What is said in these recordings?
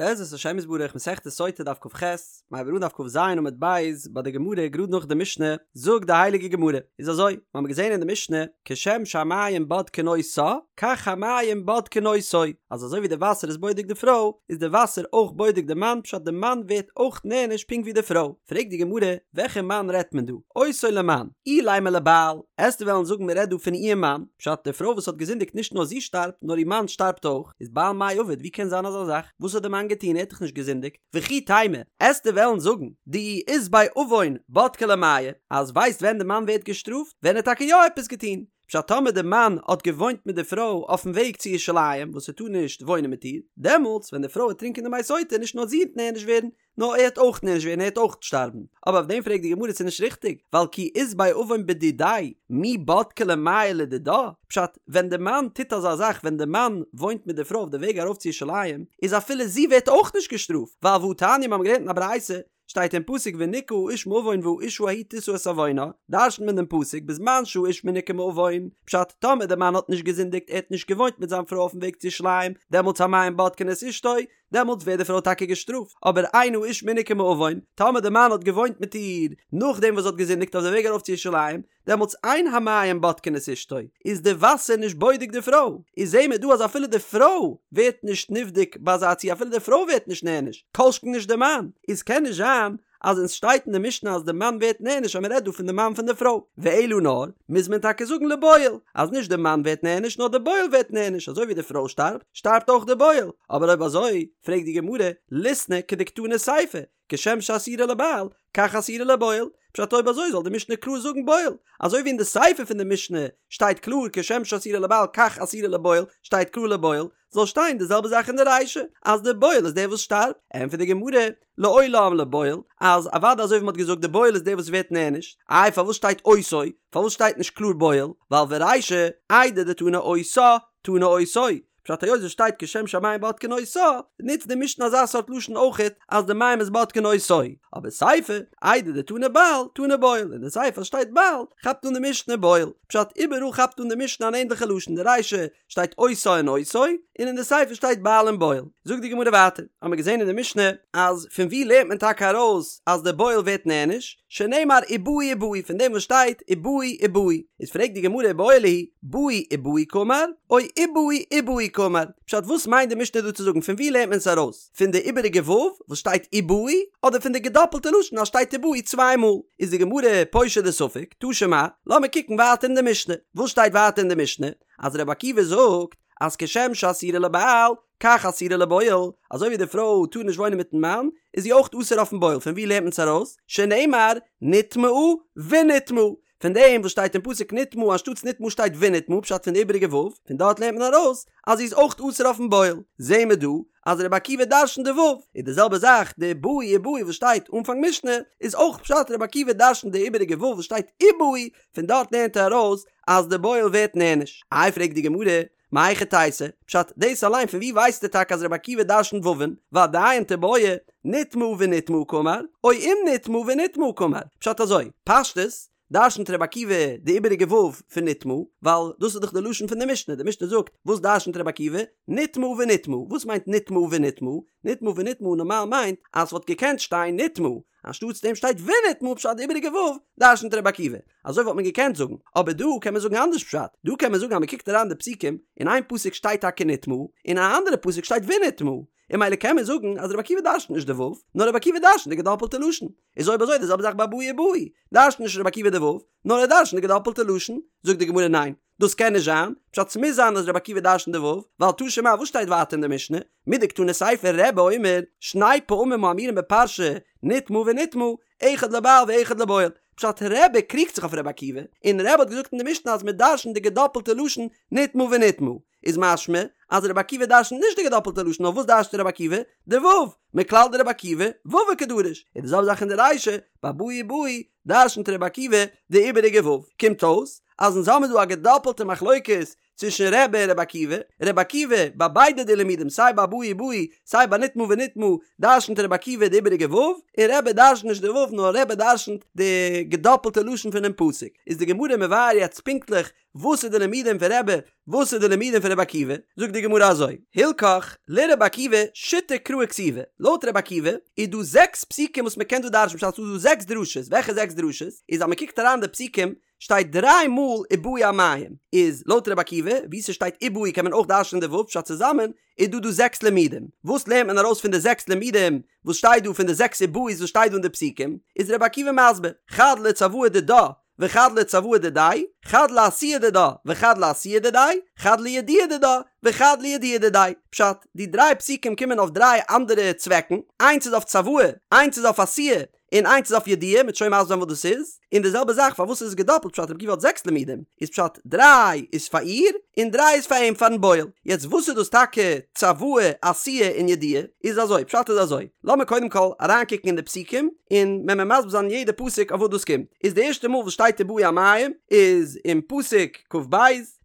בעזרת השם יתברך מסכת סוטה דף כ"ח, מ'הייבט אן דף כ"ז עמוד ב', ביי די גמרא גראד נאך די משנה, זאגט די הייליגע גמרא, איז אזוי, מיר האבן געזען אין די משנה, כשם שהמים בודקין אותה, כך המים בודקין אותו, אז אזוי ווי די וואסער איז בודק די פרוי, איז די וואסער אויך בודק די מאן, פשט די מאן ווערט אויך נענש פונקט ווי די פרוי. פרעגט די גמרא, וועלכע מאן רעדט מען דא? אותו למאן, אילימא לבעל, עסטו וועלן זאגן מען רעדט דא פון איר מאן, פשט די פרוי וואס האט געזינדיגט נישט נאר זי שטארבט נאר איר מאן שטארבט אויך, איז בעל מאי עביד ווי קען זיין אזא זאך? וואס האט די מאן געטון ער האט דאך נישט געזינדיגט? וכי תימא, עסטו וועלן זאגן דאי אית ביה עוון בדקי ליה מיא, אז ווייסט ווען די מאן ווערט געשטראפט? ווען ער האט טאקע יא עפעס געטון, פשט טאמער די מאן האט געוואוינט מיט די פרוי אויפן וועג צו ירושלים וואס ער טאר נישט וואוינען מיט איר, דעמאלטס ווען די פרוי וועט טרינקען די מי סוטה נישט נאר זי וועט נענש ווערן, נאר ער וועט אויך נענש ווערן ער וועט אויך שטארבן, אבער אויף דעם פרעגט די גמרא ס'איז נישט ריכטיג, ווייל כי אית ביה עוון בדידיה, מי בדקי ליה מיא לדידה, פשט, ווען די מאן טוט אזא זאך ווען די מאן וואוינט מיט די פרוי אויף די וועג ארויף צו ירושלים, איז אפילו זי ווערט אויך נישט געשטראפט, ווייל והתניא מיר האבן געלערנט אין א ברייתא, שטייט אין פסוק ונקה האיש מעון והאשה ההיא תשא את עוונה, דרש'נט מען דעם פסוק בזמן שהאיש מנוקה מעוון, פשט, טאמער די מאן האט נישט געזינדיגט ער האט נישט געוואוינט מיט זיין פרוי אויפן וועג צו ירושלים, דעמאלטס המים בודקין את אשתו, דעמאלטס ווערט די פרוי טאקע געשטראפט, אבער אין האיש מנוקה מעוון, טאמער די מאן האט געוואוינט מיט איר נאכדעם וואס זי האט געזינדיגט אויף די וועג ארויף צו ירושלים, דעמאלטס אין המים בודקין את אשתו, איז די וואסער נישט בודק די פרוי, איז זעהן מיר דא אז אפילו די פרוי ווערט נישט נבדק ביי אזא ציור אפילו די פרוי ווערט נישט נענש, כל שכן נישט די מאן, איז קען נישט זיין אז ווען סשטייט אין די משנה אז די מאן ווערט נענש אז מ'רעדט דא פון די מאן פון די פרוי, ואלא נאר, מוז מען טאקע זאגן לבועל, אז נישט די מאן ווערט נענש נאר די בועל ווערט נענש, אזוי ווי די פרוי שטארבט, שטארבט אויך די בועל, אבער אויב אזוי, פרעגט די גמרא, ליתני כדקתני סיפא, כשם שאסורה לבעל, כך אסורה לבועל, פשט אויב אזוי זאל די משנה קלאר זאגן בועל, אזוי ווי אין די סיפא פון די משנה שטייט קלאר כשם שאסורה לבעל כך אסורה לבועל שטייט קלאר לבועל, זאל שטיין די זעלבע זאך אין די רישא אז די בועל איז דער וואס שטארבט, ענטפערט די גמרא, לעולם לבועל, אז אוודאי אזוי ווי מ'האט געזאגט די בועל איז דער וואס ווערט נענש, איי פארוואס שטייט אותו, פארוואס שטייט נישט קלאר בועל, ווייל ורישא, איידי דתנא אותה, תנא אותו, פשט היות עס שטייט כשם שהמים בודקין אותה, נוצט די משנה אזא סארט לשון אויכעט אז די מים איז בודקין אותו, אבער סיפא, איידי דתנא בעל, תנא בועל, אין די סיפא שטייט בעל, כאפט אן די משנה בועל, פשט איבעראל כאפט אן די משנה אן ענדליכע לשון, די רישא שטייט אותה און אותו, און אין די סיפא שטייט בעל און בועל. זאגט די גמרא ווייטער, האמיר געזען אין די משנה אז פון וואו לערנט מען טאקע ארויס אז די בועל ווערט נענש, שנאמר ובאו ובאו פון דעם וואס שטייט ובאו ובאו, איז פרעגט די גמרא איבעיא להו, באו ובאו קאמר, או ובאו ובאו קאמר, פשט וואס מיינט די משנה דא צו זאגן פון וואו לערנט מען עס ארויס, פון די איבעריגע ו' וואס שטייט ובאו, אדער פון די געדאפלטע לשון אז שטייט ובאו צוויי מאל, איז די גמרא פושט די ספק, תא שמע, לאמיר קוקן ווייטער אין די משנה, וואס שטייט ווייטער אין די משנה, אז רבי עקיבא זאגט אז כשם שאסורה לבעל, כך אסורה לבועל, אזוי ווי די פרוי טאר נישט וואוינען מיטן מאן, איז זי אויך אסור אויפן בועל, פון וואו לערנט מען עס ארויס? שנאמר נטמאה ונטמאה, פון דעם וואס שטייט אין פסוק נטמאה אנשטאטס נטמאה שטייט ונטמאה פשט פון די איבעריגע ו', פון דארט לערנט מען ארויס אז זי איז אויך אסור אויפן בועל, זעהן מיר דא אז רבי עקיבא דרשנ'ט די ו', איז די זעלבע זאך די באו ובאו וואס שטייט אנפאנג משנה, איז אויך פשט רבי עקיבא דרשנ'ט די איבעריגע ו' וואס שטייט ובאו, פון דארט לערנט ער ארויס אז די בועל ווערט נענש. איי פרעגט די גמרא, מהיכי תיתי, פשט, דאס אליין פון ווי ווייסטו טאקע אז רבי עקיבא דרשנ'ט וואו'ן, ועדיין תיבעי, נטמאה ונטמאה קאמר, או אם נטמאה ונטמאה קאמר, פשט אזוי, פשטות, דרשנ'ט רבי עקיבא די איבעריגע ו' פון נטמאה, ווייל דאס איז דאך די לשון פון די משנה, די משנה זאגט, וואס דרשנ'ט רבי עקיבא? נטמאה ונטמאה, וואס מיינט נטמאה ונטמאה? נטמאה ונטמאה נארמאל מיינט אז ס'וואלט געקענט שטיין נטמאה, אנשטאטס דעם שטייט ונטמאה פשט די איבעריגע ו' דרשנ'ט רבי עקיבא. אזוי וואלט מען געקענט זאגן, אבער דא קען מען זאגן אנדערש פשט, דא קען מען זאגן אז מען קוקט אריין די פסוקים, אין איין פסוק שטייט טאקע נטמאה, אין א אנדערע פסוק שטייט ונטמאה, און ממילא קען מען זאגן אז רבי עקיבא דרשנ'ט נישט די ו', נאר רבי עקיבא דרשנ'ט די געדאפלטע לשון. איז אויב אזוי די זעלבע זאך ביי באו ובאו, דרשנ'ט נישט רבי עקיבא די ו', נאר ער דרשנ'ט די געדאפלטע לשון. זאגט די גמרא ניין, דאס קען נישט זיין, פשט ס'מוז זיין אז רבי עקיבא דרשנ'ט די ו', ווייל תא שמע וואס שטייט ווייטער אין די משנה, מדקתני סיפא רבי אומר, שני פעמים האמורים בפרשה, נטמאה ונטמאה, אחד לבעל ואחד לבועל, פשט רבי קריגט זיך אויף רבי עקיבא, און רבי האט געזאגט אין די משנה אז מ'דרשנ'ט די געדאפלטע לשון נטמאה ונטמאה, איז משמע אז רבי עקיבא דרשנ'ט נישט די געדאפלטע לשון נאר וואס דרשנ'ט רבי עקיבא? די ו', מכלל דרבי עקיבא וואוה קדריש, איז די זעלבע זאך אין די רישא, ביי באו ובאו דרשנ'ט רבי עקיבא די איבעריגע ו', קומט אויס אז אונז האמיר דא א געדאפלטע מחלוקת צווישן רבי און רבי עקיבא, רבי עקיבא ביי ביידע די לימודים סיי ביי באו ובאו סיי ביי נטמאה ונטמאה דרשנ'ט רבי עקיבא די איבעריגע ו', און רבי דרשנ'ט נישט די ו' נאר רבי דרשנ'ט די געדאפלטע לשון פונעם פסוק, איז די גמרא מבאר יעצט פונקטליך. וואס איז די לימודים פון רבי, וואס איז די לימודים פון רבי עקיבא, זאגט די גמרא אזוי, הלכך לרבי עקיבא שיתא קראי כתיבי, לויט רבי עקיבא איז דא זעקס פסוקים וואס מען קען דא דרש'ן, פשט ס'איז דא זעקס דרשות, וועלכע זעקס דרשות? איז אז מען קוקט אריין די פסוקים שטייט דריי מאל ובאו המים, איז לויט רבי עקיבא וואו ס'שטייט ובאו קען מען אויך דרש'נען די ו' פשט צוזאמען איז דא דא זעקס לימודים, וואס לערנט מען ארויס פון די זעקס לימודים וואס שטייט דא פון די זעקס ובאו'ס וואס שטייט דא אין די פסוקים, איז רבי עקיבא מסביר, חד לצוואה דידה וחד לצוואה דידיה, חד לעשיה דידה וחד לעשיה דידיה, חד לידיעה דידה וחד לידיעה דידיה. פשט, די דריי פסוקים קומען אויף דריי אנדערע צוועקן, איינס איז אויף צוואה, איינס איז אויף עשיה, און איינס איז אויף ידיעה, מ'וועט שוין מסביר זיין וואס דאס איז, און די זעלבע זאך פארוואס איז עס געדאפלט פשט רבי עקיבא האט זעקס לימודים, איז פשט דריי איז פאר איר און דריי איז פאר אים פארן בועל, יעצט וואס איז דאס טאקע צוואה, עשיה און ידיעה, איז אזוי, פשט איז אזוי, לאמיר קודם כל אריינקוקן אין די פסוקים און מען מען מסביר זיין יעדע פסוק אויף וואס דאס קומט, איז די ערשטע מאל וואס שטייט ובאו המים איז אין פסוק כ"ב,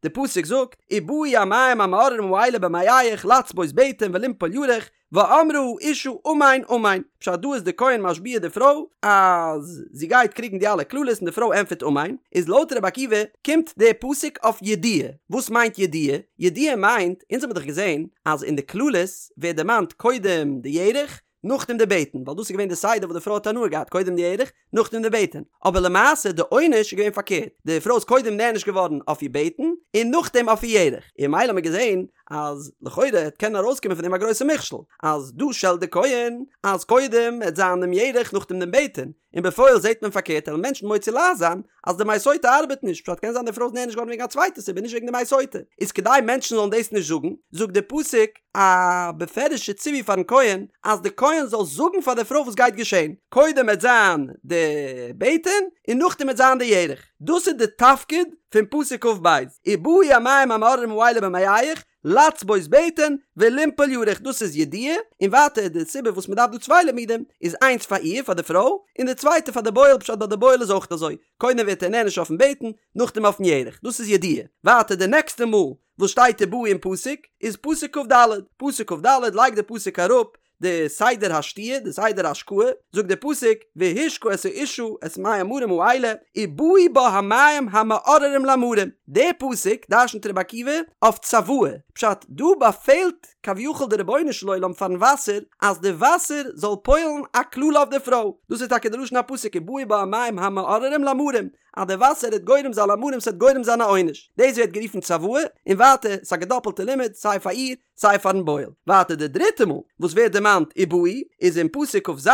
די פסוק זאגט ובאו המים המאררים האלה במעיך לצבות בטן ולנפול ירך ואמרה האשה אמן אמן, פשט דא איז די כהן משביע די פרוי אז זי גייט קריגן די אלע קללות און די פרוי ענטפערט אמן, איז לויט רבי עקיבא קומט די פסוק אויף ידיעה, וואס מיינט ידיעה? ידיעה מיינט, אונז האבן דאך געזען אז אין די קללות ווערט דערמאנט קודם די ירך נאכדעם די בטן, ווייל דאס איז געווען די סדר וואס די פרוי האט הנאה געהאט קודם די ירך נאכדעם די בטן, אבער למעשה די עונש איז געווען פארקערט, די פרוי איז קודם נענש געווארן אויף איר בטן און נאכדעם אויף איר ירך, און ממילא האט מען געזען אז לכאורה העט קענען ארויסקומען פון דעם א גרויסע מכשול, אז דא שעלט די כהן אז קודם העט זיין דעם ירך נאכדעם דעם בטן, און בפועל זעט מען פארקערט וועלן מענטשן מוציא לעז זיין אז די מי סוטה ארבעט נישט, פשט קען זיין די פרוי איז נענש געווארן וועגן א צווייטע סיבה נישט וועגן די מי סוטה, איז כדי מענטשן זאלן דאס נישט זאגן, זאגט די פסוק א בפירוש'ע ציווי פארן כהן אז די כהן זאל זאגן פאר די פרוי וואס גייט געשען, קודם וועט זיין די בטן און נאכדעם וועט זיין די ירך, דאס איז די תפקיד פון פסוק כ"ב, ובאו המים המאררים האלה במעיך, לצבות בטן ולנפול ירך דאס איז ידיעה, און ווייטער די סיבה וואס מען דארף דא צוויי לימודים איז איינס פאר איר פאר די פרוי און די צווייטע פאר די בועל פשט ביי די בועל איז אויך אזוי קודם ווערט ער נענש אויפן בטן נאכדעם אויפן ירך דאס איז ידיעה, ווייטער די נעקסטע מאל וואס שטייט ובאו אין פסוק איז פסוק כ"ד, פסוק כ"ד לייגט די פסוק אראפ די סדר השתיה, די סדר השקאה, זאגט די פסוק, והשקה את האשה את מי המרים האלה, ובאו בה המים המאררים למרים. די פסוק דרשנ'ט רבי עקיבא אויף צוואה, פשט, דא באפעלט כביכול די רבונו של עולם פארן וואסער אז די וואסער זאל פועל'ן א קללה אויף די פרוי, דאס איז טאקע די לשון הפסוק ובאו בה המים המאררים למרים, אז די וואסער וועט גורם זיין למרים ס'וועט גורם זיין א עונש, דאס ווערט גערופן צוואה, און ווייטער ס'איז א געדאפלטע לימוד סיי פאר איר סיי פארן בועל. ווייטער די דריטע מאל וואס ווערט דערמאנט ובאו איז אין פסוק כ"ז,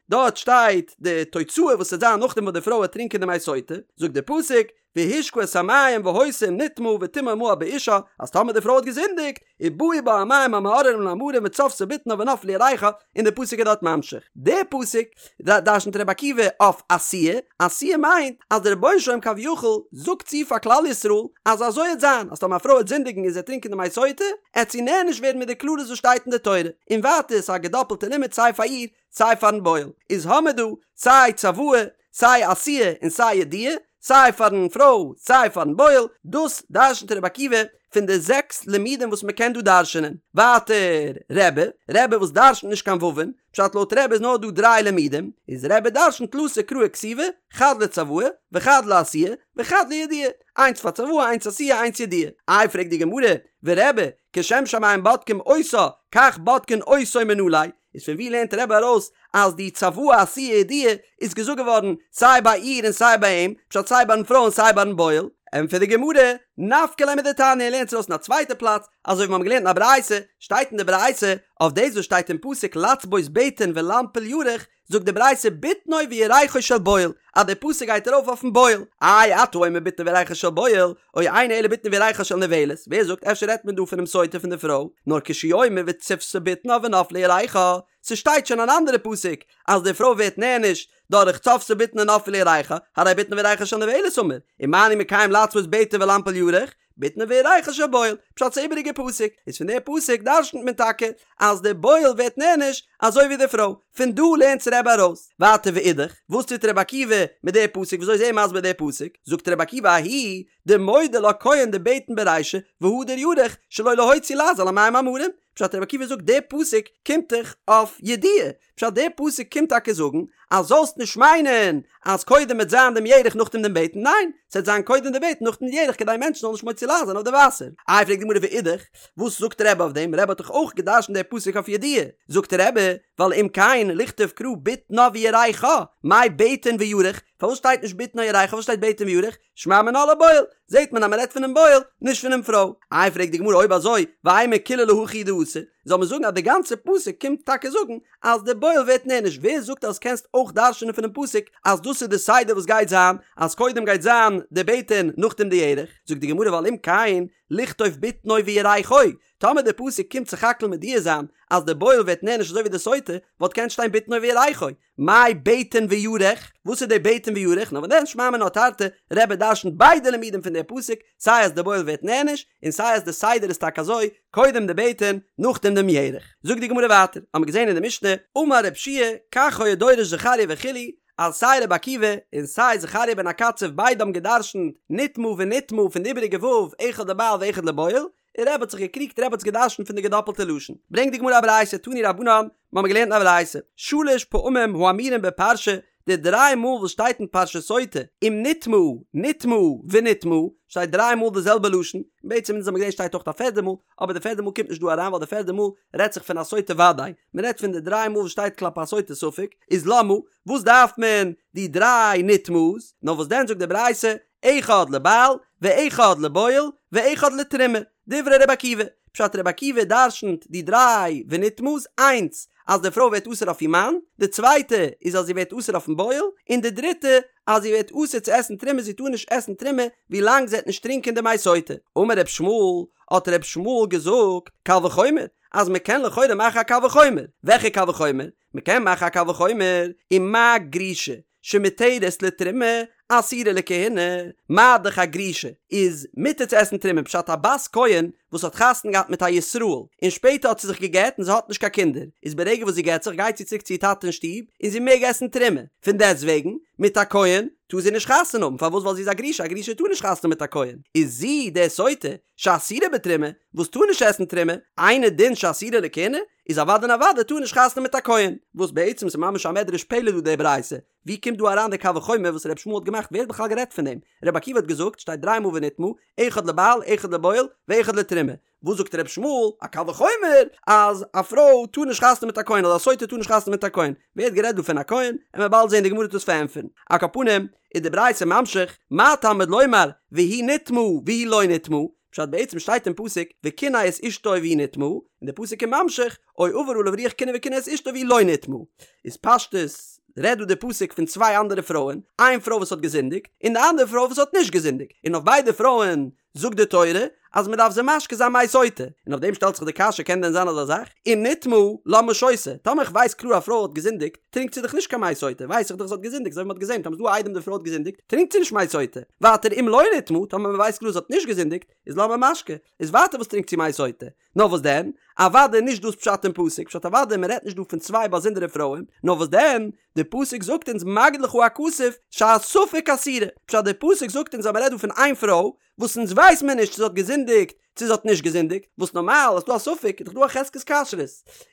דארט שטייט די תוצאה וואס וועט זיין נאכדעם וואס די פרוי וועט טרינקען די מי סוטה, זאגט די פסוק, והשקה את המים והיתה אם נטמאה וטמאה מעל באישה, אז טאמער די פרוי האט געזינדיגט, ובאו בה המים המאררים למרים וצבתה בטנה ונפלה ירכה, און די פסוק איז דארט ממשיך. די פסוק דרשנ'ט רבי עקיבא אויף עשיה, עשיה מיינט אז דער רבונו של עולם כביכול זאגט צו פאר כלל ישראל אז אזוי העט זיין אז טאמער א פרוי העט זינדיגן און זי העט טרינקען די מי סוטה העט זי נענש ווערן מיט די קללות וואס שטייט אין די תורה, און ווייטער ס'איז א געדאפלטע לימוד סיי פאר איר סיי פארן בועל, איז האמער דא סיי צוואה סיי עשיה און סיי ידיעה, סיי פארן פרוי סיי פארן בועל, דאס דרשנ'ט רבי עקיבא פון די זעקס לימודים וואס מ'קען דא דרשנ'ען. ווייטער רבי, רבי וואס דרשנ'ט נישט קיין וואו'ן, פשט לויט רבי איז נאר דא דריי לימודים, איז רבי דרשנ'ט תלתא קראי כתיבי, חד לצוואה, וחד לעשיה, וחד לידיעה, איינס פאר צוואה איינס עשיה איינס ידיעה. איי פרעגט די גמרא, ורבי, כשם שהמים בודקים אותה, כך בודקין אותו מנא ליה, איז פון ווי לערנט רבי ארויס אז די צוואה עשיה ידיעה איז געזאגט געווארן סיי ביי איר און סיי ביי אים, פשט סיי ביים פרוי און סיי ביים בועל? ענטפערט די גמרא, נפקא ליה מדתניא ער לערנט עס ארויס אין א צווייטע פלאץ, אזוי ווי מיר האבן געלערנט אין א ברייתא, שטייט אין די ברייתא, אויף דאס וואס שטייט אין פסוק לצבות בטן ולנפול ירך, זאגט די ברייתא בטנו וירכו של בועל, אז די פסוק גייט ארויף אויפן בועל, איי אתה אומר בטנו וירכו של בועל, או אינו אלא בטנה וירכה של נבעלת, ווער זאגט אפשר רעדט מען דא פונעם סוטה פון די פרוי, נאר כשהוא אומר וצבתה בטנה ונפלה ירכה, ס'שטייט שוין אן אנדערע פסוק אז די פרוי ווערט נענש דורך צבתה בטנה ונפלה ירכה, הרי בטנה וירכה של נבעלת אמור, ומה אני מקיים לצבות בטן ולנפול ירך, בטנו וירכו של בועל, פשט ס'איז איבעריגע פסוק, איז פון די פסוק דרשנ'ט מען טאקע אז די בועל ווערט נענש אזוי ווי די פרוי, פון דא לערנט עס רבי ארויס. ווייטער ואידך, וואס טוט רבי עקיבא מיט די פסוק וויאזוי איז ער מסביר די פסוק, זאגט רבי עקיבא ההיא דמודה לה כהן דבטן ברישא והדר ירך שלא להוציא לעז על המים המרים, פשט רבי עקיבא זאגט די פסוק קומט דאך אויף ידיעה, פשט די פסוק קומט טאקע זאגן. אז זאלסט נישט מיינען אז קודם וועט זיין דעם ירך נאכדעם דעם בטן, ניין, ס'וועט זיין קודם די בטן נאכדעם די ירך כדי מענטשן זאלן נישט מוציא לעז זיין אויף די וואסער. איי פרעגט די גמרא ואידך, וואס זאגט רבי אויף דעם, רבי האט דאך אויך גע'דרש'נט די פסוק אויף ידוע, זאגט רבי, ווייל אם כן לכתוב קרא בטנה וירכה, מאי בטן וירך, פארוואס שטייט נישט בטנה וירכה פארוואס שטייט בטן וירך, שמע מינה לבועל, זעט מען אז מען רעדט פונעם בועל, נישט פונעם פרוי. איי פרעגט די גמרא אויב אזוי, ואימא כולה להכי הוא דאתא, זאל מען זאגן אז די גאנצע פסוק קומט טאקע זאגן אז די בועל ווערט נענש, ווער זאגט אז קענסט אויך דרש'נען פונעם פסוק אז דאס איז די סדר וואס גייט זיין, אז קודם גייט זיין די בטן נאכדעם די ירך, זאגט די גמרא ווייל אם כן לכתוב בטנו וירכו, טאמער די פסוק קומט סך הכל מודיע זיין אז די בועל ווערט נענש אזוי ווי די סוטה, וואלט געקענט שטיין בטנו וירכו, מאי בטן וירך? וואס איז די בטן וירך? נאר וואדען שמע מינה תרתי, רבי דרשנ'ט ביידע לימודים פון די פסוק, סיי אז די בועל ווערט נענש, און סיי אז די סדר איז טאקע אזוי, קודם די בטן, נאכדעם דעם ירך. זאגט די גמרא ווייטער, האמיר געזען אין די משנה, אמר רב שיע, כך היה דורש זכריה וכו', אז סיי רבי עקיבא און סיי זכריה בן הקצב ביידע האבן געדרשנ'ט נטמאה ונטמאה פון די איבעריגע ו' אחד לבעל ואחד לבועל, און רבי האט זיך געקריגט רבי האט עס געדרשנט פון די געדאפלטע לשון. ברענגט די גמרא א ברייתא תנו רבנן, מיר האבן געלערנט אין א ברייתא, שלש פעמים האמורים בפרשה, די דריי מאל וואס שטייט אין פרשת סוטה, אם נטמאה, נטמאה, ונטמאה, שטייט דריי מאל די זעלבע לשון, און בעצם אונז האבן געזען שטייט אויך א פערדע מאל, אבער די פערדע מאל קומט נישט דא אריין ווייל די פערדע מאל רעדט זיך פון א סוטה וודאי, מען רעדט פון די דריי מאל וואס שטייט כלפי א סוטה ספק, איז למה, וואס דארף מען די דריי נטמאה'ס, נאר וואס דען זאגט די ברייתא, אחד לבעל, ואחד לבועל, ואחד לתרומה, דברי רבי עקיבא, פשט רבי עקיבא דרשנ'ט די דריי ונטמאה'ס, איינס אז די פרוי ווערט אסור אויף איר מאן, די צווייטע איז אז זי ווערט אסור אויפן בועל, און די דריטע אז זי ווערט אסור צו עסן תרומה זי טאר נישט עסן תרומה ווי לאנג זי וועט נישט טרינקען די מי סוטה. אמר ר' ישמעאל, האט ר' ישמעאל געזאגט, קל וחומר, אז מען קען לכאורה מאכן א קל וחומר, וועלכע קל וחומר? מען קען מאכן א קל וחומר, ומה גרושה שמותרת לתרומה אסורה לכהונה, מה דאך א גרושה איז מותר צו עסן תרומה פשט א בת כהן וואס האט חתונה געהאט מיט א ישראל און שפעטער האט זי זיך גע'גט און זי האט נישט קיין קינדער איז ברגע וואס זי גט זיך גייט זי צוריק צו איר טאטע אין שטוב און זי מעג עסן תרומה פון דעסט וועגן מיט א כהן טאר זי נישט חתונה האבן פארוואס ווייל זי איז א גרושה א גרושה טאר נישט חתונה האבן מיט א כהן איז זי די סוטה שאסורה בתרומה וואס טאר נישט עסן תרומה אינו דין שאסורה לכהונה איז אוודאי און אוודאי טאר נישט חתונה מיט א כהן, וואס בעצם איז ממש א מדרש פלא דא די ברייתא, ווי קומט דא אריין די קל וחומר וואס ר' ישמעאל האט געמאכט ווער האט בכלל גערעדט פון דעם, ר' עקיבא האט געזאגט שטייט דריי מאל ונטמאה, אחד לבעל אחד לבועל ואחד לתרומה, וואס זאגט ר' ישמעאל, א קל וחומר אז א פרוי טאר נישט חתונה מיט א כהן אדער א סוטה טאר נישט חתונה מיט א כהן, ווער האט גערעדט דא פון א כהן, עמיר באלד זען די גמרא וועט דאס פארענטפערן, על כל פנים איז די ברייתא ממשיך, מה תלמוד לומר והיא נטמאה והיא לא נטמאה, פשט בעצם שטייט אין פסוק וקנא את אשתו והיא נטמאה, און די פסוק איז ממשיך או עבר עליו רוח קנאה וקנא את אשתו והיא לא נטמאה. איז פשטות רעדט דא די פסוק פון צוויי אנדערע פרויען, איין פרוי וואס האט געזינדיגט, און די אנדערע פרוי וואס האט נישט געזינדיגט, און אויף ביידע פרויען זאגט די תורה אז מען דארף זיי משקה זיין מי סוטה, און אויף דעם שטעלט זיך די קשיא קען דען זיין אזא זאך? אם נטמאה למה שותה, טאמער איך ווייס קלאר א פרוי האט געזינדיגט, טרינקט זי דאך נישט קיין מי סוטה, ווייס איך דאך זי האט געזינדיגט, אזוי ווי מ'האט געזען, טאמער ס'איז דא עדים די פרוי האט געזינדיגט, טרינקט זי נישט מי סוטה. ווייטער אם לא נטמאה, טאמער מ'ווייסט קלאר זי האט נישט געזינדיגט, איז למה משקה, איז ווייטער וואס טרינקט זי מי סוטה? נאר וואס דען? אוודאי נישט דאס פשט אין פסוק, פשט אוודאי מ'רעדט נישט דא פון צוויי באזונדערע פרויען, נאר וואס דען? די פסוק זאגט אונז מגיד לך הכתוב שהספק אסורה, פשט די פסוק זאגט אונז אז מ'רעדט דא פון איין פרוי, וואס אונז ווייס מיר נישט צו זי האט געזינדיגט צו זי האט נישט געזינדיגט, וואס נארמאל אז ס'דא א ספק איז דאך דא א חזקת כשרות,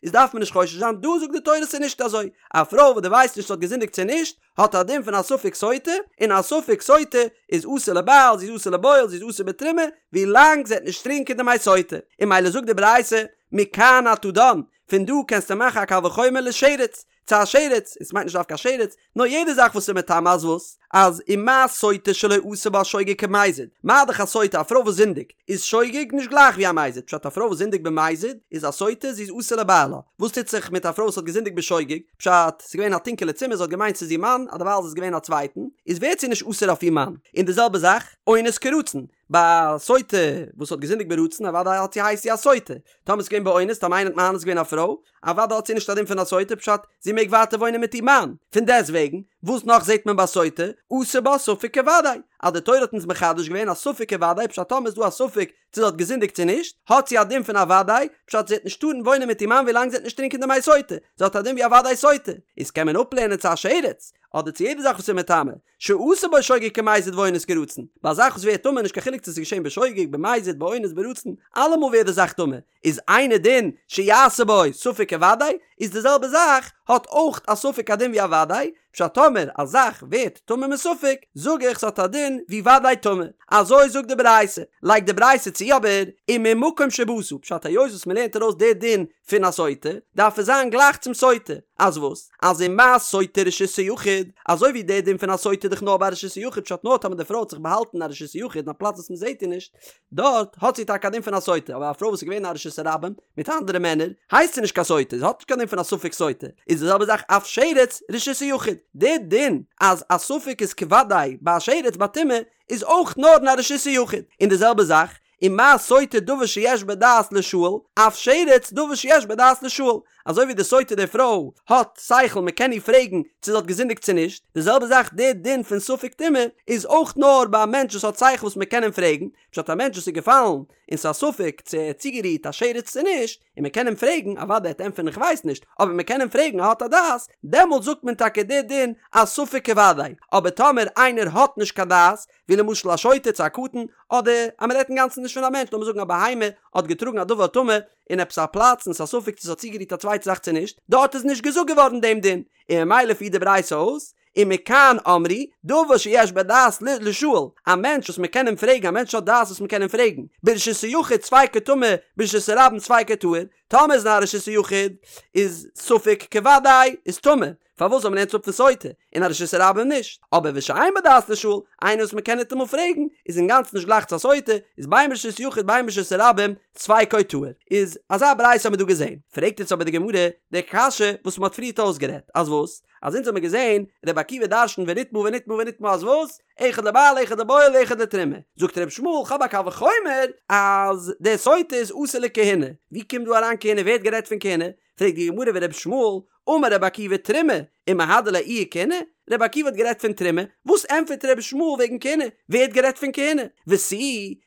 איז דארף מען נישט חושש זיין, דא זאגט די תורה ס'איז נישט אזוי, א פרוי וואס דו ווייסט נישט צו זי האט געזינדיגט צו נישט, האט א דין פון א ספק סוטה, און א ספק סוטה איז אסור לבעל, זי איז אסור לבועל, זי איז אסור בתרומה, ווי לאנג זי וועט נישט טרינקען די מי סוטה, און ממילא זאגט די ברייתא, מכאן אתה דן, פון דא קענסטו מאכן א קל וחומר לשרץ, צו א שרץ, און ס'מיינט נישט דווקא א שרץ, נאר יעדע זאך וואס איז מטמא אז וואס? אז ומה סוטה שלא עשה בה שוגג כמזיד, מה דאך א סוטה א פרוי וואס זינדיגט, איז שוגג נישט גלייך ווי א מזיד, פשט א פרוי וואס זינדיגט במזיד איז א סוטה זי איז אסור לבעלה, וואס טוט זיך מיט א פרוי וואס האט געזינדיגט בשוגג, פשט, ס'איז געווען א טונקעלע צימער זי האט געמיינט ס'איז איר מאן, אדערווייל איז עס געווען א צווייטן, איז ווערט זי נישט אסור אויף איר מאן, און די זעלבע זאך, אונס כרצון, ביי א סוטה וואס האט געזינדיגט ברצון אוודאי האט זי הייסט זי א סוטה, טאמער ס'איז געווען באונס טאמער איינער האט מאנס געווען א פרוי, אוודאי האט זי נישט א דין פון א סוטה פשט זי מעג ווייטער וואוינען מיט איר מאן, פון דעסט וועגן וואס נאך זעט מען ביי סוטה, עשה בה ספק כוודאי, אז די תורה האט אונז מחדש געווען א ספק כוודאי פשט טאמער איז דא א ספק צו זי האט געזינדיגט צו נישט, האט זי א דין פון א וודאי, פשט זי וועט נישט טארן וואוינען מיט איר מאן ווילאנג זי וועט נישט טרינקען די מי סוטה, זי האט א דין ווי א וודאי סוטה, איז קען מען אפלערנען צו א שרץ, אדער צו יעדע זאך וואס איז מטמא, שעשה בו שוגג כמזיד ואונס כרצון, ביי א זאך וואס ווערט טמא נישט קיין חילוק צו עס איז געשען בשוגג, במזיד, באונס, ברצון, אלעמאל ווערט די זאך טמא, איז אינו דין שיעשה בו ספק כוודאי, איז די זעלבע זאך האט אויך א ספק א דין ווי א וודאי, פשט טאמער א זאך ווערט טמא מספק, זאג איך ס'האט א דין ווי וודאי טמא. אזוי זאגט די ברייתא. לייגט די ברייתא צו אבער, וממקום שבאת, פשט היות וואס מ'לערנט ארויס די דין פון א סוטה, דארף עס זיין גלייך צום סוטה. אז וואס? אז ומה סוטה רשות היחיד, אזוי ווי די דין פון א סוטה איז דאך נאר ביי רשות היחיד, פשט נאר טאמער די פרוי האט זיך באהאלטן אין א רשות היחיד אין א פלאץ וואס מ'זעט איר נישט, דארט האט זי טאקע א דין פון א סוטה, אבער א פרוי וואס איז געווען אין א רשות הרבים מיט אנדערע מענער, הייסט זי נישט קיין סוטה, זי האט נישט קיין דין פון א ספק סוטה, איז די זעלבע זאך אף שרץ רשות היחיד, די דין אז א ספק איז כוודאי ביי א שרץ ביי טומאה איז אויך נאר אין א רשות היחיד, און די זעלבע זאך ומה סוטה דבר שיש בו דעת לישאל, אף שרץ דבר שיש בו דעת לישאל, אזוי ווי די סוטה די פרוי האט שכל מען קען איר פרעגן צו זי האט געזינדיגט צו נישט, די זעלבע זאך די דין פון ספק טומאה איז אויך נאר ביי א מענטש וואס האט שכל וואס מען קען אים פרעגן, פשט א מענטש וואס איז געפאלן און ס'איז א ספק צו ער האט צוגערירט א שרץ צו נישט, און מען קען אים פרעגן, אוודאי ער וועט ענטפערן איך ווייס נישט, אבער מען קען אים פרעגן ער האט א דעת, דעמאלט זאגט מען טאקע די דין אז ספק כוודאי, אבער טאמער איינער האט נישט קיין דעת, ווי למשל א שוטה צו א קטן, אדער אז מען רעדט אינגאנצן נישט פון א מענטש, לאמיר זאגן א בהמה האט געטראגן א דבר טמא אין עפעס א פלאץ און ס'איז א ספק צו ס'האט צוגערירט א צווייטע זאך צו נישט, דארט איז נישט געזאגט געווארן דעם דין, און ממילא פירט די ברייתא אויס, ומכאן אמרו, דבר שיש בו דעת לישאל, א מענטש וואס מען קען אים פרעגן, א מענטש האט דעת וואס מען קען אים פרעגן, ברשות היחיד ספיקו טמא, ברשות הרבים ספיקו טהור, טאמער איז אין א רשות היחיד איז ספק כוודאי איז טמא, פארוואס ווייל מ'לערנט אפ פון סוטה, אין א רשות הרבים נישט, אבער ושאין בו דעת לישאל, איינער וואס מען קען ניטאמאל פרעגן, איז אינגאנצן נישט גלייך צו א סוטה, איז בין ברשות יחיד בין ברשות הרבים, ספיקו טהור. איז אזא ברייתא האבן מיר דא געזען. פרעגט יעצט אבער די גמרא די קשיא וואס מען האט פריערט אויסגערעדט, אז וואס? אז אונז האבן מיר געזען רבי עקיבא דרש'נט ונטמאה ונטמאה ונטמאה אז וואס? אחד לבעל אחד לבועל אחד לתרומה. זאגט רבי ישמעאל כ'האב א קל וחומר אז די סוטה איז אסור לכהונה. ווי קומט דא אריין כהונה? ווער האט גערעדט פון כהונה? פרעגט די גמרא ורבי ישמעאל אמר רבי עקיבא תרומה ומהדר ליה איהי כהונה? רבי עקיבא האט גערעדט פון תרומה, וואס ענטפערט רבי ישמעאל וועגן כהונה? ווער האט גערעדט פון כהונה? ותו,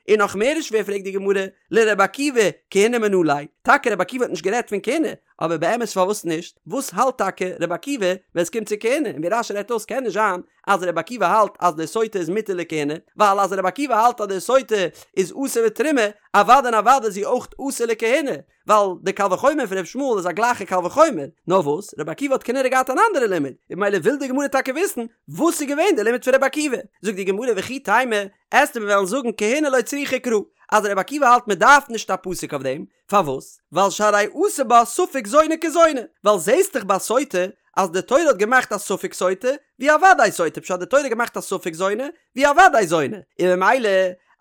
און נאך מער איז שווער פרעגט די גמרא, לרבי עקיבא כהונה מנא ליה, טאקע רבי עקיבא האט נישט גערעדט פון כהונה, אבער באמת פארוואס נישט? וואס האלט טאקע רבי עקיבא ווען עס קומט צו כהונה? און ווי רש"י רעדט אויס קען נישט זיין אז רבי עקיבא האלט אז די סוטה איז מותר לכהונה, ווייל אז רבי עקיבא האלט אז די סוטה איז אסור בתרומה, אוודאי און אוודאי איז זי אויך אסור לכהונה, ווייל די קל וחומר פון ר' ישמעאל איז א גלייכע קל וחומר, נאר וואס, רבי עקיבא האט כנראה געהאט אן אנדערע לימוד, און ממילא וויל די גמרא טאקע וויסן וואס איז געווען די לימוד פון רבי עקיבא, זאגט די גמרא וכי תימא, עסטו מיר וועלן זאגן כהונה לא צריכא קרא, אז רבי עקיבא האלט מען דארף נישט א פסוק אויף דעם, פארוואס? ווייל שהרי עשה בה ספק זונה כזונה, ווייל זעסט דאך ביי סוטה אז די תורה האט געמאכט א ספק סוטה ווי א וודאי סוטה, פשט די תורה האט געמאכט א ספק זונה ווי א וודאי זונה, און ממילא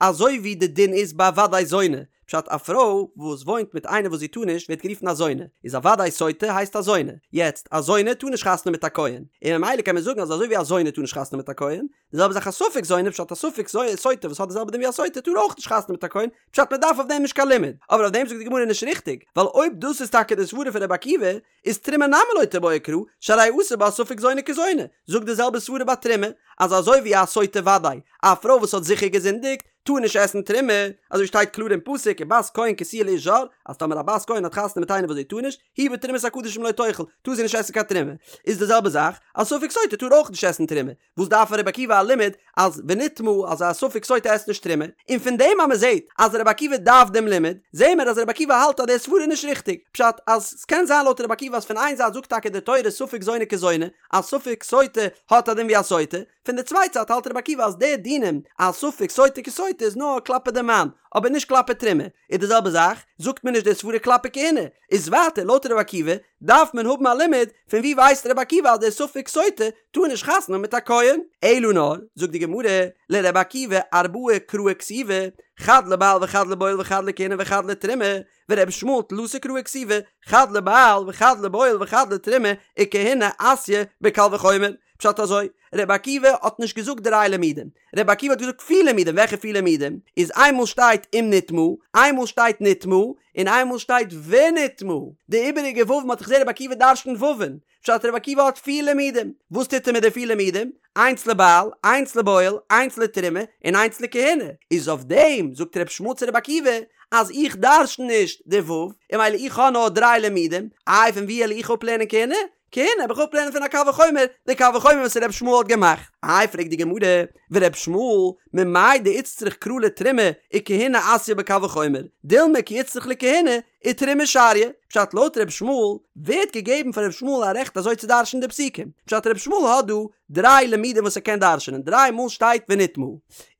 אזוי ווי די דין איז ביי וודאי זונה, פשט א פרוי וואס וואוינט מיט איינער וואס זי טאר נישט ווערט גערופן א זונה, איז א וודאי סוטה הייסט א זונה, יעצט א זונה טאר נישט חתונה מיט א כהן, און ממילא קען מען זאגן אז אזוי ווי א זונה טאר נישט חתונה מיט א כהן, די זעלבע זאך א ספק זונה פשט א ספק סוטה וואס האט די זעלבע דין ווי א סוטה טאר אויך נישט חתונה מיט א כהן, פשט מען דארף אויף דעם נישט קיין לימוד, אבער אויף דעם זאגט די גמרא נישט ריכטיג, ווייל אויב דאס איז טאקע די סברה פון רבי עקיבא, איז תרומה נמי לא תיבעי קרא, שהרי עשה בה ספק זונה כזונה, זאג די זעלבע סברה ביי תרומה, אז אזוי ווי א סוטה וודאי, א פרוי וואס האט זיכער געזינדיגט, טאר נישט עסן תרומה, אזוי שטייט קלאר אין פסוק ובת כהן כי תהיה לאיש זר, אז טאמער א בת כהן האט חתונה מיט איינער וואס זי טאר נישט, היא בתרומת הקדשים לא תאכל, טאר זי נישט עסן קיין תרומה, איז די זעלבע זאך, א ספק סוטה טאר אויך נישט עסן תרומה, וואס דארף רבי עקיבא א לימוד אז ונטמאה אז א ספק סוטה עסט נישט תרומה, און פון דעם אז מען זעט אז רבי עקיבא דארף דעם לימוד, זעהן מיר אז רבי עקיבא האלט אז די סברה איז נישט ריכטיג, פשט אז ס'קען זיין לויט רבי עקיבא אז פון איין זייט זאגט טאקע די תורה ספק זונה כזונה אז ספק סוטה האט א דין ווי א סוטה, פון די צווייטע זייט האלט רבי עקיבא אז די דינים אז ספק סוטה כסוטה איז נאר כלפי די מאן אבער נישט כלפי תרומה, איז די זעלבע זאך זאגט מען נישט די סברה כלפי כהונה, איז ווייטער לויט רבי עקיבא דארף מען האבן א לימוד, פון ווי ווייסט רבי עקיבא אז דער ספק סוטה טאר נישט חתונה מיט א כהן? אלא נאר, זאגט די גמרא, לרבי עקיבא ארבעה קראי כתיבי, חד לבעל וחד לבועל וחד לכהונה וחד לתרומה, ורבי ישמעאל תלתא קראי כתיבי, חד לבעל וחד לבועל וחד לתרומה, וכהונה אתיא בקל וחומר. פשט אזוי, רבי עקיבא האט נישט געזאגט דריי לימודים, רבי עקיבא האט געזאגט פיר לימודים, וועלכע פיר לימודים? איז איינמאל שטייט אם נטמאה, איינמאל שטייט נטמאה, און איינמאל שטייט ונטמאה. די איבעריגע וואו'ן האט דאך געזען רבי עקיבא דרש'נט וואו'ן, פשט רבי עקיבא האט פיר לימודים, וואס טוט ער מיט די פיר לימודים? איינס לבעל, איינס לבועל, איינס לתרומה, און איינס לכהונה. איז אויף דעם זאגט רבי ישמעאל צו רבי עקיבא, אז איך דרש'ן נישט די וואוו, און ממילא איך האב נאר דריי לימודים, איי פון וואו וועל איך אפלערנען כהונה? כהונה וועל איך אפלערנען פון א קל וחומר, די קל וחומר וואס ר' ישמעאל האט געמאכט. איי פרעגט די גמרא, ור' ישמעאל, ממאי דאיצטריך קרא לתרומה וכהונה אתיא בקל וחומר, דילמא כי איצטריך לכהונה ותרומה שריא, פשט לויט ר' ישמעאל ווער האט געגעבן פאר ר' ישמעאל א רעכט אזוי צו דרש'ן די פסוקים, פשט ר' ישמעאל האט דא דריי לימודים וואס ער קען דרש'נען, דריי מאל שטייט ונטמאה,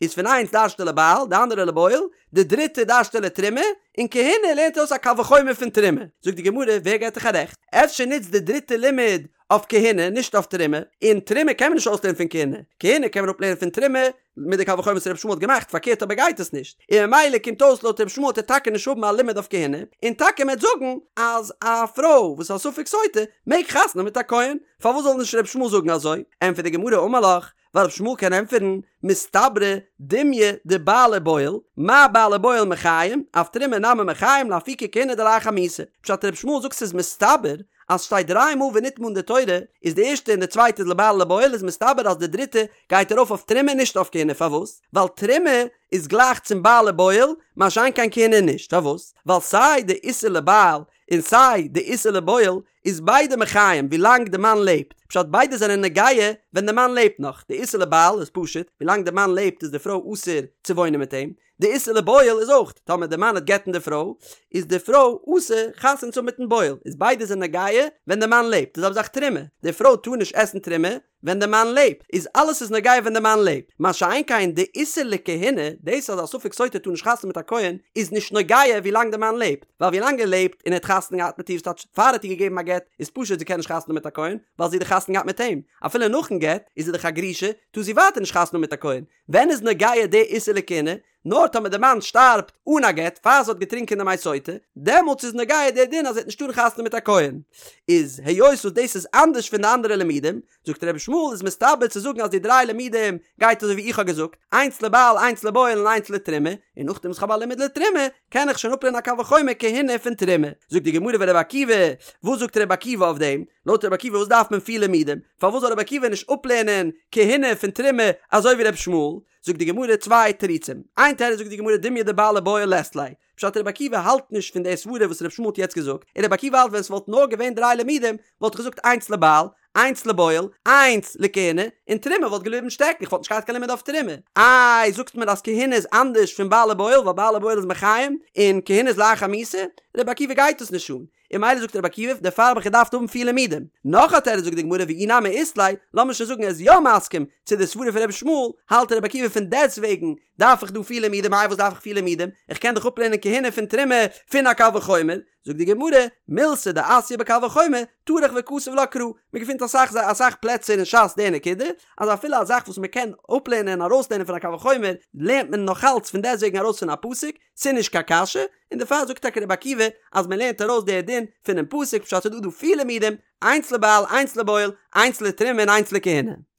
איז פון איינס דרש'ט ער לבעל, די אנדערע לבועל, די דריטע דרש'ט ער לתרומה, און כהונה לערנט ער אויס א קל וחומר פון תרומה. זאגט די גמרא, ווער געט דיך א רעכט? אפשר נוצט די דריטע לימוד אויף כהונה, נישט אויף תרומה, און תרומה קען מען נישט אויסלערנען פון כהונה, כהונה קען מען אפלערנען פון תרומה, מיט די קל וחומר וואס רבי ישמעאל האט געמאכט, פארקערט אבער גייט עס נישט, און ממילא קומט אויס לויט רבי ישמעאל וועט ער טאקע נישט האבן א לימוד אויף כהונה, און טאקע מ'עט זאגן אז א פרוי וואס איז א ספק סוטה מעג חתונה האבן מיט א כהן, פארוואס זאל נישט רבי ישמעאל זאגן אזוי? ענטפערט די גמרא אמר לך, ווייל רבי ישמעאל קען ענטפערן, מסתברא דומיא דבעל ובועל, מה בעל ובועל מחיים, אף תרומה נמי מחיים לאפוקי כהונה דלאחר מיתה. פשט רבי ישמעאל זאגט ס'איז מסתבר אז שטייט דריי מאל ונטמאה אין די תורה, איז די ערשטע און די צווייטע איז לבעל ולבועל איז מסתבר אז די דריטע גייט ארויף אויף תרומה נישט אויף כהונה פארוואס? ווייל תרומה איז גלייך צום בעל ובועל מה שאין כן כהונה נישט פארוואס? ווייל סיי די איסור לבעל און סיי די איסור לבועל איז ביידע מחיים ווילאנג די מאן לעבט, פשט ביידע זענען נוגע ווען די מאן לעבט נאך, די איסור לבעל איז פשוט, ווילאנג די מאן לעבט איז די פרוי אסור צו וואוינען מיט אים, די איסור לבועל איז אויך, טאמער די מאן וועט גט'ן די פרוי, איז די פרוי אסור חתונה צו האבן מיטן בועל, איז ביידע זענען נוגע ווען די מאן לעבט, די זעלבע זאך תרומה, די פרוי טאר נישט עסן תרומה ווען די מאן לעבט, איז אלעס איז נוגע ווען די מאן לעבט, מה שאין כן די איסור לכהונה, דאס אז א ספק סוטה טאר נישט חתונה מיט א כהן, איז נישט נוגע ווילאנג די מאן לעבט, ווייל ווילאנג ער לעבט און ער האט חתונה געהאט מיט איר ס'טייטש פאר ער האט איר געגעבן א גט, איז פשוט זי קען נישט חתונה מיט א כהן, ווייל זי האט דאך חתונה געהאט מיט אים, אפילו נאכן גט איז זי דאך א גרושה, טאר זי ווייטער נישט חתונה מיט א כהן, ווען איז נוגע די איסור לכהונה? נאר טאמער די מאן שטארבט אן א גט פאר זי האט געטרינקען די מי סוטה, דעמאלטס איז נוגע די דין אז זי וועט נישט טארן חתונה מיט א כהן. איז היות וואס דאס איז אנדערש פון די אנדערע לימודים, זאגט רבי ישמעאל איז מסתבר צו זאגן אז די דריי לימודים גייט אזוי ווי איך האב געזאגט, איינס לבעל איינס לבועל און איינס לתרומה, און נאכדעם וואס כ'האב א לימוד לתרומה, קען איך שוין אפלערנען א קל וחומר כהונה פון תרומה. זאגט די גמרא ורבי עקיבא, וואס זאגט רבי עקיבא אויף דעם? לויט רבי עקיבא וואס דארף מען פיר לימודים? פארוואס זאל רבי עקיבא נישט אפלערנען כהונה פון תרומה אזוי ווי רבי ישמעאל? זאגט די גמרא צוויי תירוצים, איין תירוץ זאגט די גמרא דומיא דבעל ובועל לית ליה, פשט רבי עקיבא האלט נישט פון די סברה וואס רבי ישמעאל האט יעצט געזאגט, און רבי עקיבא האלט ווען ס'וואלט נאר געווען דריי לימודים וואלט איך געזאגט איינס לבעל, איינס לבועל, איינס לכהונה, און תרומה וואלט געבליבן שטעקן, איך וואלט נישט געהאט קיין לימוד אויף תרומה. איי זאגסט מיר אז כהונה איז אנדערש פון בעל ובועל ווייל בעל ובועל איז מחיים און כהונה איז לאחר מיתה? רבי עקיבא גייט דאס נישט אן, און ממילא זאגט רבי עקיבא דערפאר האב איך געדארפט האבן פיר לימודים. נאך א תירוץ זאגט די גמרא ואי נמי אית ליה, לאמיר שוין זאגן ער איז יא מסכים צו די סברה פון רבי ישמעאל, האלט רבי עקיבא פון דעסטוועגן דארף איך דא פיר לימודים, איי וואס דארף איך פיר לימודים, איך קען דאך אפלערנען כהונה פון תרומה פון א קל וחומר, זאגט די גמרא, מילתא דאתיא בקל וחומר, טרח וכתב לה קרא, מען געפינט אסאך אסאך פלעצער אין ש"ס די נקודה, אז אפילו א זאך וואס מען קען אפלערנען און ארויסלערנען פון א קל וחומר, לערנט מען נאכאלץ פון דעסטוועגן ארויס פון א פסוק, ס'איז נישט קיין קשיא, און דערפאר זאגט טאקע רבי עקיבא אז מען לערנט ארויס די דין פונעם פסוק פשט ס'איז דא דא פיר לימודים, איינס לבעל איינס לבועל, איינס לתרומה און איינס לכהונה.